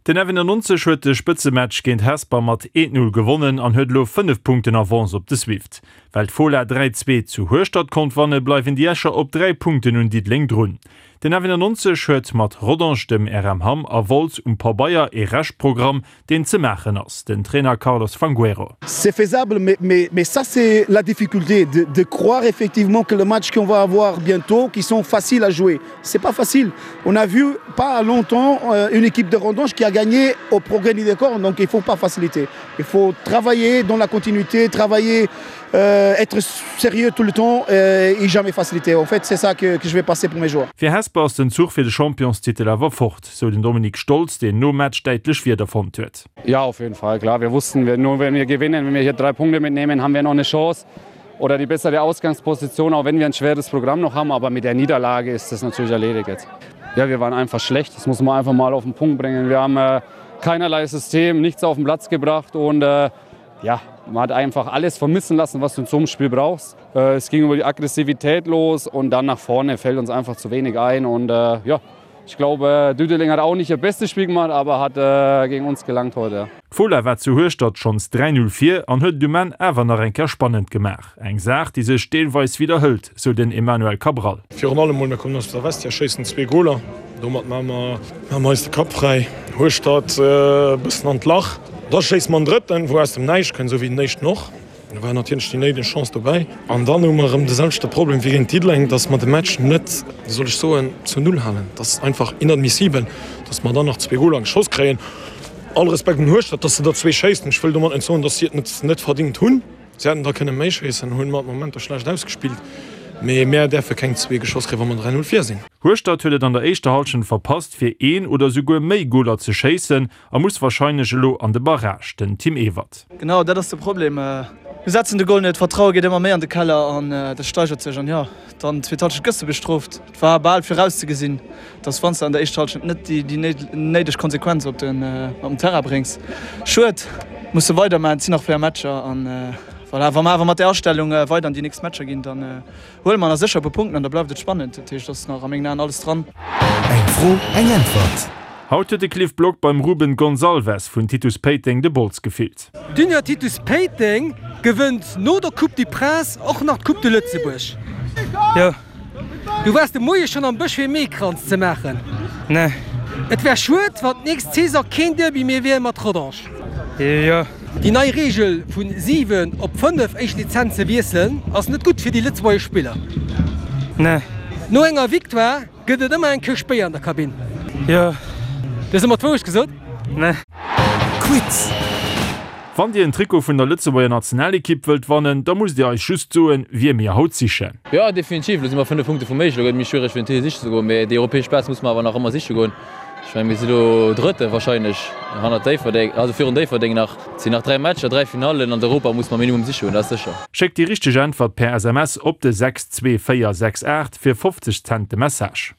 Den F91 huet de Spëtzematch géint Hesper mat 1, 0 gewonnen an huet elo 5 Punkten Avance op de Swift. Well d'Fola 3, 2 zu Hueschtert konnt wannen, bleiwen déi Escher op 3 Punkten un Diddeleng drun. Den F91 huet mat Rodange, dem RM Hamm a Wolz um Pabeier ee Reschtprogramm, deen ze maachen ass. Den Trainer Carlos Fangueiro. C'est faisable mais mais mais ça c'est la difficulté de de croire effectivement que le match qu'on va avoir bientôt qui sont faciles à jouer c'est pas facile on a vu pas longtemps euh, une équipe de Rondange qui a gagné au progrès du décor donc il faut pas faciliter il faut travailler dans la continuité travailler euh, être sérieux tout le temps euh, et jamais faciliter en fait c'est ça que, que je vais passer pour mes joueurs. Fir Hesper ass den Zuch fir de Championstitel awer fort, sou den Dominik Stolz, deen nom Match däitlech Wierder fonnt huet. Ja, auf jeden Fall klar. Wir wussten, wir, nur wenn wir gewinnen, wenn wir hier drei Punkte mitnehmen, haben wir noch eine Chance oder die bessere Ausgangsposition, auch wenn wir ein schweres Programm noch haben. Aber mit der Niederlage ist das natürlich erledigt jetzt. Ja, wir waren einfach schlecht. Das muss man einfach mal auf den Punkt bringen. Wir haben äh, keinerlei System, nichts auf den Platz gebracht und äh, ja, man hat einfach alles vermissen lassen, was du in so einem Spiel brauchst. Äh, es ging über die Aggressivität los und dann nach vorne fällt uns einfach zu wenig ein und äh, ja, ich glaube, Düdeling hat auch nicht ihr bestes Spiel gemacht, aber hat äh, gegen uns gelangt heute. D'Fola war zu Hueschtert schonns 3, 0 vir an huet et um Enn awer nach eng Kéier spannend gemaach. Eng Saach, déi sech deelweis widderhëlt, sou den Emmanuel Cabral. Virun allem mol, mir kommen aus der Vestiaire, schéissen zwee Goler. Domat maache mer maache mer eis de Kapp fräi. Hueschtert e bëssen an d'Lach. Da schéisse mer en drëtten, wou aus dem Näischt kënnt, esou wéi den éischten och. Do war natierlech déi néideg Chance dobäi. An dann hu mer erëm de selwechte Problem wéi géint Diddeleng, dass mer de Match net, wéi soll ech soen, zur Null halen. Dat ass einfach inadmissibel, dass mer dann nach zwee Goler geschoss kréien. All Respekt un Hueschtert, dass se der zwee schéissen. Ech wëll domat net soen, dass si et net net verdingt hunn. Si hätten der kënne méi schéissen, hunn mat Momenter schlecht ausgespillt. Mee mär däerfe keng zwee geschoss kréien, wa mer 3, 0 vir sinn. Hueschtert huet et an der éischter Hallschent verpasst, fir een oder souguer méi Goler ze schéissen a muss warscheinlech elo an de Barrage, den Tim Ewert. Genau dat ass de Problem. Mir setzen de Gol net, d'Vertraue geet ëmmer méi an de Keller an dat steigert sech. An jo, dann zweet Halschent gëss de bestrooft. Et war bal virauszegesinn, dass wann s de an der éischter Halschent net déi néideg Konsequenz op den Terrain bréngs. Schued, musse weidermachen, et sinn nach 4 Matcher an voilà, wa mer awer mat där Astellung weider an déi nächst Matcher ginn, dann Huele mer nach sécher e puer Punkten an da bleift et spannend. Dat heescht, et ass nach a mengen Aen alles dran. Eng Fro, eng Äntwert. Haut huet de Cliff Block beim Ruben Gonçalves vun Titus Péiteng de Bols gefillt. D'Union Titus Péiteng gewënnt no der Coupe du Prince och nach d'Coupe de Lëtzebuerg. Jo. Du waars de Moie schonn am Bësch fir ee Meekranz ze maachen? Nee. Et wär schued, wann d'nächst Saison keen Derby méi wier mat Rodange. Jo. Déi nei Reegel vun 7 op 5 éischt Lizenze wiesselen ass net gutt fir déi lëtzebuergesch Spiller. Nee. No enger Victoire gëtt et ëmmer eng Këscht Béier an der Kabinn. Jo. Du hues ëmmer d'Wourecht gesot? Nee. Quiz! Wann dir en Trikot vun der Lëtzebuerger Nationalekipp wëllt wannen, da musst dir eis just soen, wie mir haut sichen. Jo, definitiv. Elo si mer 5 Punkte vum Méigel. Elo gëtt et méi schwiereg fir den Titel siche ze goen, mee déi europäesch Plaz musse mer awer nach ëmmer siche goen. Ech mengen, mir si lo Drëtte wahrscheinlech hannert Déifferdeng, also virun Déifferdeng nach. Et sinn nach 3 Matcher, 3 Finallen an d'Europa musse mer minimum siche goen, dat ass sécher. Schéckt déi richteg Äntwert per SMS op de 62468 fir 50 Cent de Message.